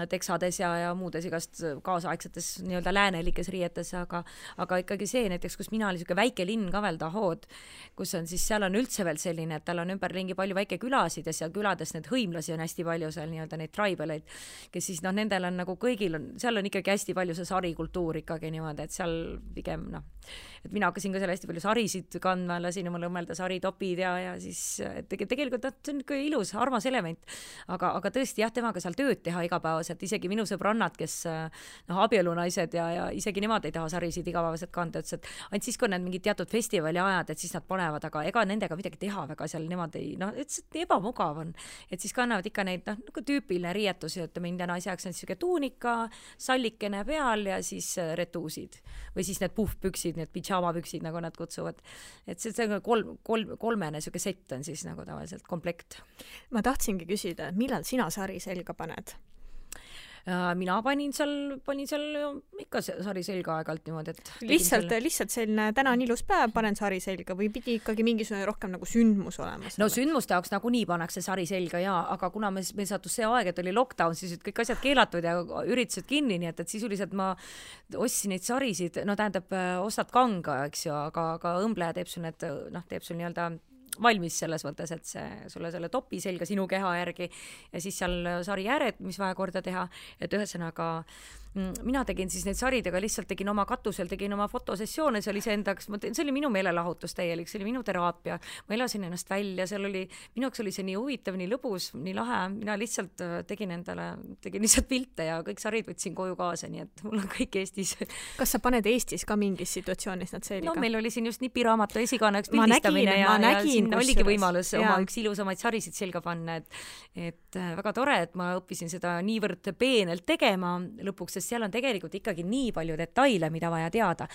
teksades ja muudes igast kaasaegsetes nii-öelda läänelikes riietes, aga ikkagi see näiteks, kus mina olin selline väike linn ka veel Dahod, kus on siis, seal on üldse veel selline, et tal on ümberringi palju väike külasid ja seal külades need hõimlasi on hästi palju seal nii-öelda neid tribaleid, kes siis nendel on nagu kõigil on, seal on ikkagi hästi palju see sarikultuur ikkagi niimoodi, et seal pigem et mina hakkasin ka seal hästi palju sarisid kandma, lasin omale õmmelda saritopid ja siis tegelikult see on ikka ilus, armas element, aga tõesti jah, temaga seal tööd teha igapäevaselt, isegi minu sõbrannad, kes abielunaised ja isegi nemad ei taha sarisid igapäevaselt kanda, ütles, et ainult siis, kui need mingid teatud festivali ajad, et siis nad panevad, aga ega nendega midagi teha väga seal, nemad ei, ütles, et ebamugav on, et siis kannavad ikka neid, nagu tüüpiline riietus, et mind ja naise jaoks on siuke tuunika, sallikene peal ja siis retuusid või siis need puhvpüksid, need pidžaamapüksid, nagu nad kutsuvad, et see kolmene siuke sett on siis nagu tavaliselt komplekt. Ma tahtsingi küsida, millal sina sari selga paned? Mina panin seal ikka sari selga aeg-alt niimoodi, et lihtsalt selline täna on ilus päev, panen sari selga või pidi ikkagi mingisugune rohkem nagu sündmus olema? No sündmuste jaoks nagunii pannakse sari selga aga kuna meil sattus see aeg, et oli lockdown, siis kõik asjad keelatud ja üritused kinni, nii et sisuliselt ma ostsin neid sarisid, tähendab, ostad kanga, eks ju, aga õmbleja teeb sul need, teeb sul nii-öelda valmis selles mõttes, et sulle selle topi selga sinu keha järgi ja siis seal sari ääred, mis vaja korda teha, et ühesõnaga mina tegin siis neid saridega, lihtsalt tegin oma katusel, tegin oma fotosessioone, see oli iseendaks, see oli minu meelelahutus täielik, see oli minu teraapia, ma elasin ennast välja, minu jaoks oli see nii huvitav, nii lõbus, nii lahe, mina lihtsalt tegin lihtsalt pilte ja kõik sarid võtsin koju kaasa, nii et mul on kõik Eestis. Kas sa paned Eestis ka mingis situatsioonis nad selga? Meil oli siin just nipiraamatu esikaaneks pildistamine ja siin oligi võimalus oma üks ilusamaid sarisid selga panna, et väga tore, et ma õppisin seda niivõrd peenelt tegema lõpuks, sest seal on tegelikult ikkagi nii palju detaile, mida vaja teada.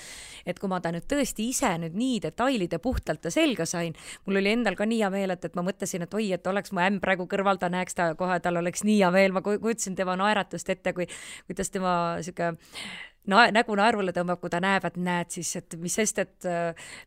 Et kui ma ta nüüd tõesti ise nüüd nii detailide puhtalt ta selga sain, mul oli endal ka nii hea meel, et ma mõtlesin, et oi, et oleks mu ämm praegu kõrval, ta näeks ta kohe, tal oleks nii hea meel, ma kujutasin tema naeratust ette, kuidas tema siuke nägu naervule tõmbab, kui ta näeb, et näed siis, et mis sest, et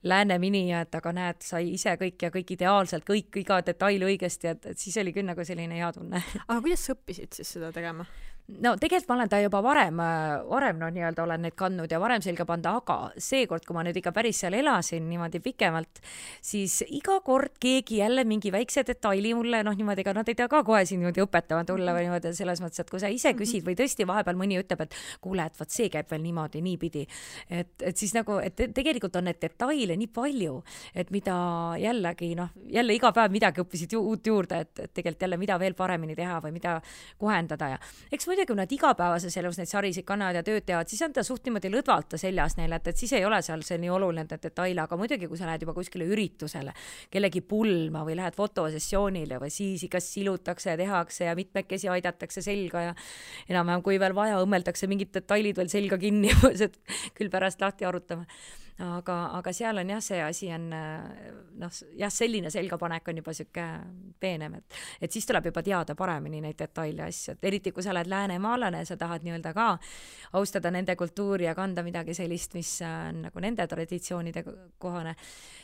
lääne minija, et aga näed, sai ise kõik ideaalselt, iga detail õigesti, et siis oli küll nagu selline hea tunne. Aga kuidas sa õppisid siis seda tegema? No tegelikult ma olen ta juba varem nii-öelda olen neid kandnud ja varem selga panda, aga seekord, kui ma nüüd ikka päris seal elasin niimoodi pikemalt, siis iga kord keegi jälle mingi väikse detaili mulle, niimoodi, ega nad ei tea ka kohe siin niimoodi õpetama tulla või niimoodi selles mõttes, et kui sa ise küsid või tõesti vahepeal mõni ütleb, et kuule, et vaat see käib veel niimoodi, niipidi, et siis nagu, et tegelikult on need detaile nii palju, et mida jällegi, jälle iga päev midagi õppisid uut juurde, et tegelikult jälle mida veel paremini teha või mida kohendada ja eks muidugi, kui nad igapäevases elus neid sarisid kannavad ja tööd teevad, siis on ta suht niimoodi lõdvalt seljas neile, et siis ei ole seal see nii oluline detaile, aga muidugi, kui sa lähed juba kuskile üritusele, kellegi pulma või lähed fotosessioonile või siis ikka silutakse ja tehakse ja mitmekesi aidatakse selga ja enam-vähem, kui veel vaja, õmmeldakse mingid detailid veel selga kinni, et küll pärast lahti arutame. aga seal on jah, see asi on noh, jah, selline selgapanek on juba siuke peenem, et siis tuleb juba teada paremini neid detaile asju, et eriti kui sa oled läänemaalane, sa tahad nii-öelda ka austada nende kultuuri ja kanda midagi sellist, mis on nagu nende traditsioonide kohane,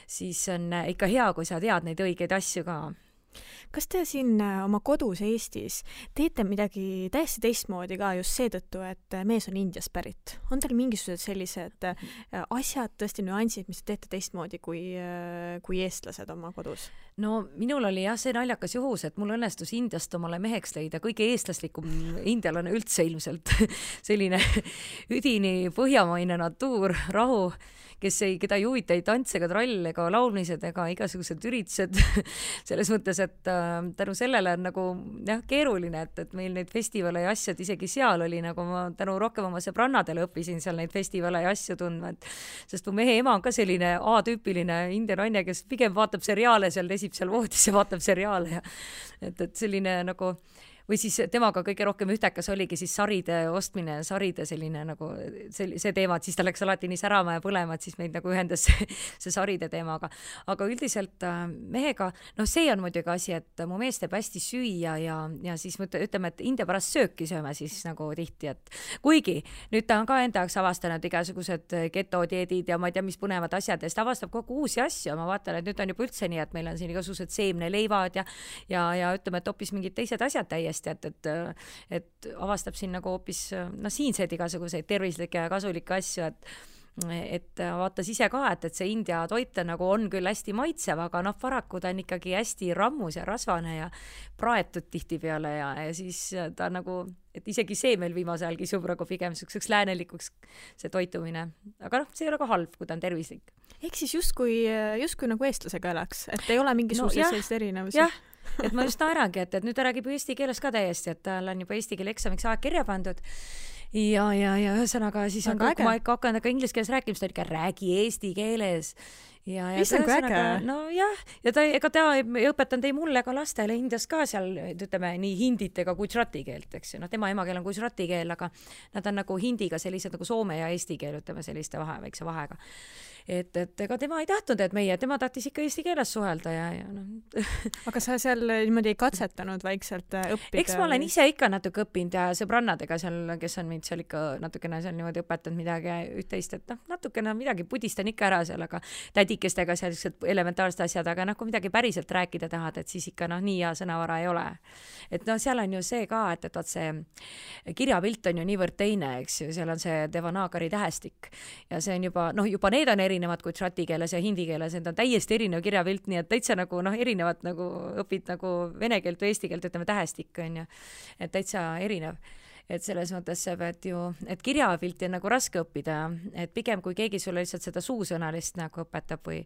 siis on ikka hea, kui sa tead neid õigeid asju ka. Kas te siin oma kodus Eestis teete midagi täiesti teistmoodi ka just seetõttu, et mees on Indiast pärit? On teil mingisugused sellised asjad, tõesti nüansid, mis te teete teistmoodi kui eestlased oma kodus? No minul oli jah see naljakas juhus, et mul õnnestus Indiast omale meheks leida kõige eestlaslikum indialane üldse ilmselt. Selline üdini põhjamaine natuur, rahu, keda ei huvita ei tants ega trall ega laulmised ega igasugused üritused. Selles mõttes, et tänu sellele on nagu jah, keeruline, et meil neid festivale ja asjad isegi seal oli, nagu ma tänu rohkem oma sõbrannadele õppisin seal neid festivale ja asju tundma, sest mu mehe ema on ka selline A-tüüpiline india naine, kes pigem vaatab seriaale seal, lesib seal voodis ja vaatab seriaale ja et selline nagu või siis temaga kõige rohkem ühtekas oligi siis saride ostmine, saride selline nagu see teema, et siis ta läks alati nii särama ja põlema, et siis meid nagu ühendas see saride teemaga. Aga üldiselt mehega, noh see on muidugi asi, et mu mees teeb hästi süüa ja siis ütleme, et India pärast sööki sööme siis nagu tihti, et kuigi nüüd ta on ka enda jaoks avastanud igasugused ketodieedid ja ma ei tea, mis põnevad asjad ja siis ta avastab kogu uusi asju, ma vaatan, et nüüd on juba üldse nii, et meil on siin igasugused seemneleivad ja ütleme, et hoopis mingid teised asjad täiesti, et avastab siin nagu hoopis siinseid igasuguseid tervislikke ja kasulikke asju, et vaatas ise ka, et see India toit nagu on küll hästi maitsev, aga paraku ta on ikkagi hästi rammus ja rasvane ja praetud tihtipeale ja siis ta nagu, et isegi see meil viimase ajal kisub nagu pigem selliseks läänelikuks see toitumine, aga see ei ole ka halb, kui ta on tervislik. Ehk siis justkui nagu eestlasega elaks, et ei ole mingisuguseid sellist erinevusi. Jah, et ma just naerangi, et nüüd ta räägib eesti keeles ka täiesti, et tal on juba eesti keele eksamiks aeg kirja pandud ja ühesõnaga siis on, kui ma ikka hakkan inglise keeles rääkima, siis ta ikka räägi eesti keeles ja no jah, ja ega ta ei õpetanud ei mulle ega lastele Indias ka seal, ütleme nii hindit ega gujarati keelt, eks ju, tema emakeel on gujarati keel, aga nad on nagu hindiga sellised nagu soome ja eesti keel, ütleme selliste väikse vahega. Et ega tema ei tahtnud, et tema tahtis ikka eesti keeles suhelda ja Aga sa seal niimoodi ei katsetanud vaikselt õppida? Eks ma olen ise ikka natuke õppinud ja sõbrannadega seal, kes on mind seal ikka natukene seal niimoodi õpetanud midagi üht-teist, et natukene midagi pudistan ikka ära seal, aga tädikestega sellised elementaarsed asjad, aga kui midagi päriselt rääkida tahad, et siis ikka nii hea sõnavara ei ole. Et seal on ju see ka, et vaat see kirjapilt on ju niivõrd teine, eks ju, seal on see Devanagari tähestik ja see on juba need on erinevad gujarati keeles ja hindi keeles, need on täiesti erinev kirjapilt, nii et täitsa nagu erinevad nagu õpid nagu vene keelt või eesti keelt, ütleme tähestik on ju, et täitsa erinev. Et selles mõttes sa pead ju, et kirjapilti on nagu raske õppida, et pigem kui keegi sulle lihtsalt seda suusõnalist nagu õpetab või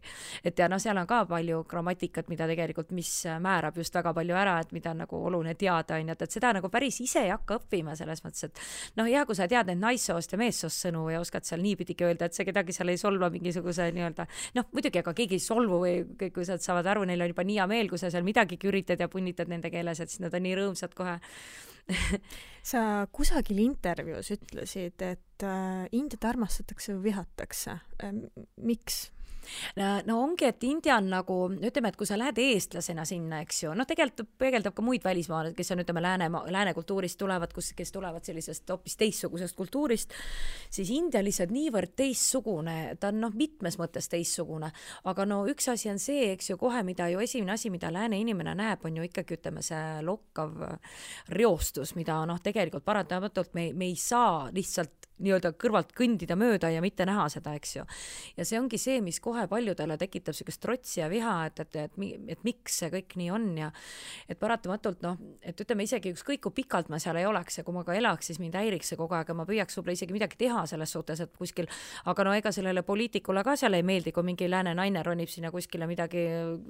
et ja seal on ka palju grammatikat, mida tegelikult, mis määrab just väga palju ära, et mida on nagu oluline teada, on, et seda nagu päris ise ei hakka õppima selles mõttes, et hea, kui sa tead neid naissoost ja meessoost sõnu ja oskad seal niipidigi öelda, et see kedagi seal ei solva mingisuguse nii-öelda, muidugi, aga keegi ei solvu või kõik, kui sa saavad aru, neil on juba nii hea meel, kui sa seal midagigi üritad ja punnitad nende keeles, et siis nad on nii rõõmsad kohe. Sa kusagil intervjuus ütlesid, et Indiat armastatakse või vihatakse. Miks? No ongi, et India on nagu, ütleme, et kui sa lähed eestlasena sinna, eks ju, tegelikult peegeldab ka muid välismaalasi, kes on, ütleme, lääne kultuurist tulevad, kes tulevad sellisest hoopis teistsugusest kultuurist, siis India lihtsalt niivõrd teistsugune, ta on mitmes mõttes teistsugune, aga üks asi on see, eks ju, kohe, mida ju esimene asi, mida lääne inimene näeb, on ju ikkagi, ütleme, see lokkav reostus, mida tegelikult paratamatult me ei saa lihtsalt nii-öelda kõrvalt kõndida mööda ja mitte näha seda, eks ju. Ja see ongi see, mis kohe paljudele tekitab sellist trotsi ja viha, et miks see kõik nii on ja et paratamatult, et ütleme isegi ükskõik kui pikalt ma seal ei oleks ja kui ma ka elaks, siis mind häiriks see kogu aeg ja ma püüaks võib-olla isegi midagi teha selles suhtes, et kuskil, aga ega sellele poliitikule ka seal ei meeldi, kui mingi lääne naine ronib sinna kuskile midagi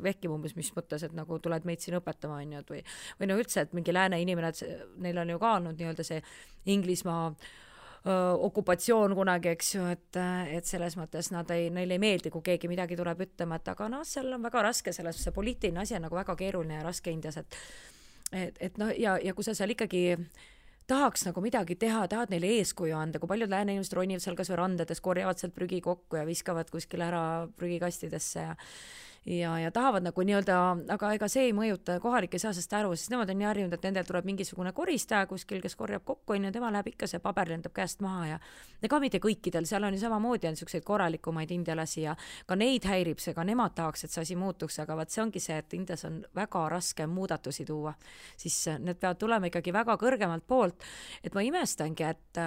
vehkib umbes, mis mõttes, et nagu tuled meid siin õpetama, on ju, või üldse, et mingi lääne inimene, et neil on ju ka olnud nii-öelda see Inglismaa okupatsioon kunagi, eks ju, et selles mõttes neil ei meeldi, kui keegi midagi tuleb ütlema, et aga seal on väga raske, see poliitiline asi on nagu väga keeruline ja raske Indias, et ja kui sa seal ikkagi tahaks nagu midagi teha, tahad neile eeskuju anda, kui paljud lääne inimesed ronivad seal kas või randades, korjavad sealt prügi kokku ja viskavad kuskile ära prügikastidesse ja tahavad nagu nii-öelda, aga ega see ei mõjuta, kohalik ei saa sest aru, sest nemad on nii harjunud, et nendel tuleb mingisugune koristaja kuskil, kes korjab kokku, ja tema läheb ikka, see paber lendab käest maha ja ka mitte kõikidel, seal on ju samamoodi on niisuguseid korralikumaid indialasi ja ka neid häirib see, ka nemad tahaks, et see asi muutuks, aga vaat see ongi see, et Indias on väga raske muudatusi tuua, siis need peavad tulema ikkagi väga kõrgemalt poolt, et ma imestangi, et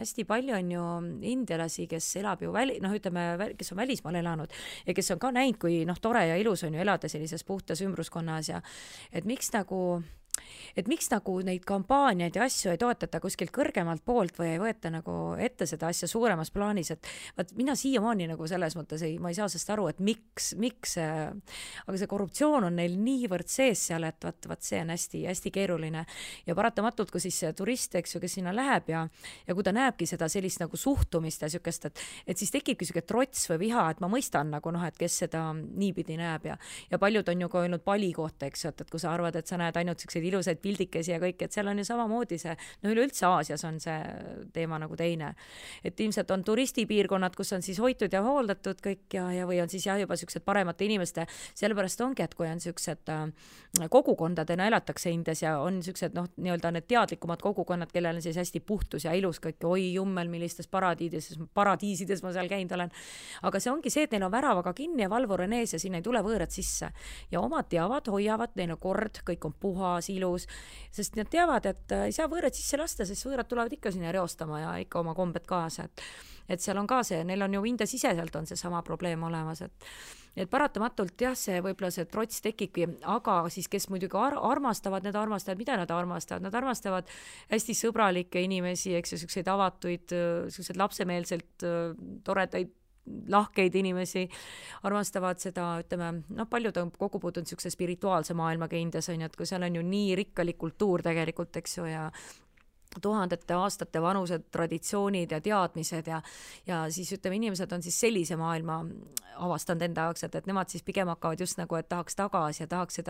hästi palju on ju indialasi, kes elab ju kes on välismaal elanud ja kes on ka näinud, kui tore ja ilus on ju elada sellises puhtas ümbruskonnas ja et miks nagu neid kampaaniaid ja asju ei toetata kuskilt kõrgemalt poolt või ei võeta nagu ette seda asja suuremas plaanis, et vaat mina siiamaani nagu selles mõttes ma ei saa sellest aru, et miks aga see korruptsioon on neil niivõrd sees seal, et vaat see on hästi keeruline ja paratamatult, kui siis turist, eks ju, kes sinna läheb ja kui ta näebki seda sellist nagu suhtumist ja niisugust, et siis tekibki niisugune trots või viha, et ma mõistan nagu et kes seda niipidi näeb ja paljud on ju ka öelnud Bali kohta, eks ju, et kui sa arvad, et sa näed ainult niisuguseid ilusaid pildikesi ja kõik, et seal on ju samamoodi see, üleüldse Aasias on see teema nagu teine. Et ilmselt on turistipiirkonnad, kus on siis hoitud ja hooldatud kõik ja või on siis juba niisugused paremate inimeste, sellepärast ongi, et kui on niisugused kogukondadena elatakse Indias ja on niisugused nii-öelda need teadlikumad kogukonnad, kellel on siis hästi puhtus ja ilus kõik, oi jummel, millistes paradiisides ma seal käinud olen. Aga see ongi see, et neil on väravaga kinni ja valvur on ees ja sinna ei tule võõrad sisse. Ja omad teavad, hoiavad, neil on kord, kõik on puhas, ilus, sest nad teavad, et ei saa võõrad sisse lasta, sest võõrad tulevad ikka sinna reostama ja ikka oma kombed kaasa, et seal on ka see, neil on ju India siseselt on see sama probleem olemas, et paratamatult jah, see võib-olla see trots tekibki, aga siis kes muidugi armastavad, mida nad armastavad? Nad armastavad hästi sõbralikke inimesi, eks ju, selliseid avatuid, selliseid lapsemeelselt toredaid lahkeid inimesi, armastavad seda, ütleme, paljud on kokku puutunud niisuguse spirituaalse maailmaga Indias, on ju, et kui seal on ju nii rikkalik kultuur tegelikult, eks ju, ja tuhandete aastate vanused traditsioonid ja teadmised ja siis ütleme, inimesed on siis sellise maailma avastanud enda jaoks, et nemad siis pigem hakkavad just nagu, et tahaks tagasi ja tahaks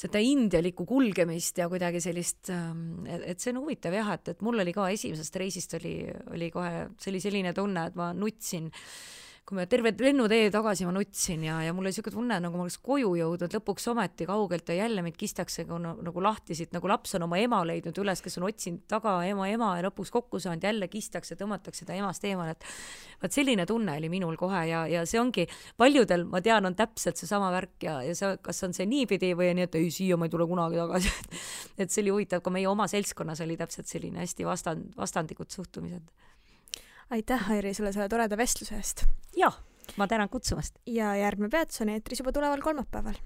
seda indialikku kulgemist ja kuidagi sellist, et see on huvitav jah, et mul oli ka esimesest reisist oli kohe selline tunne, et ma nutsin, kui me terve lennutee tagasi ma nutsin ja mul oli niisugune tunne, nagu ma oleks koju jõudnud lõpuks ometi kaugelt ja jälle meid kistakse nagu lahtisid, nagu laps on oma ema leidnud üles, kes on otsinud taga ema ja lõpuks kokku saanud, jälle kistakse, tõmmatakse ta emast eemal, et vaat selline tunne oli minul kohe ja see ongi, paljudel, ma tean, on täpselt seesama värk ja see, kas on see niipidi või nii, et ei, siia ma ei tule kunagi tagasi, et see oli huvitav, ka meie oma seltskonnas oli täpselt selline hästi vastandikud suhtumised. Aitäh, Airi, selle toreda vestluse eest. Jah, ma tänan kutsumast. Ja järgmine peatus on eetris juba tuleval kolmapäeval.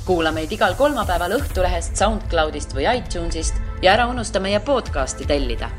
Kuula meid igal kolmapäeval Õhtulehest, SoundCloudist või iTunesist ja ära unusta meie podcasti tellida.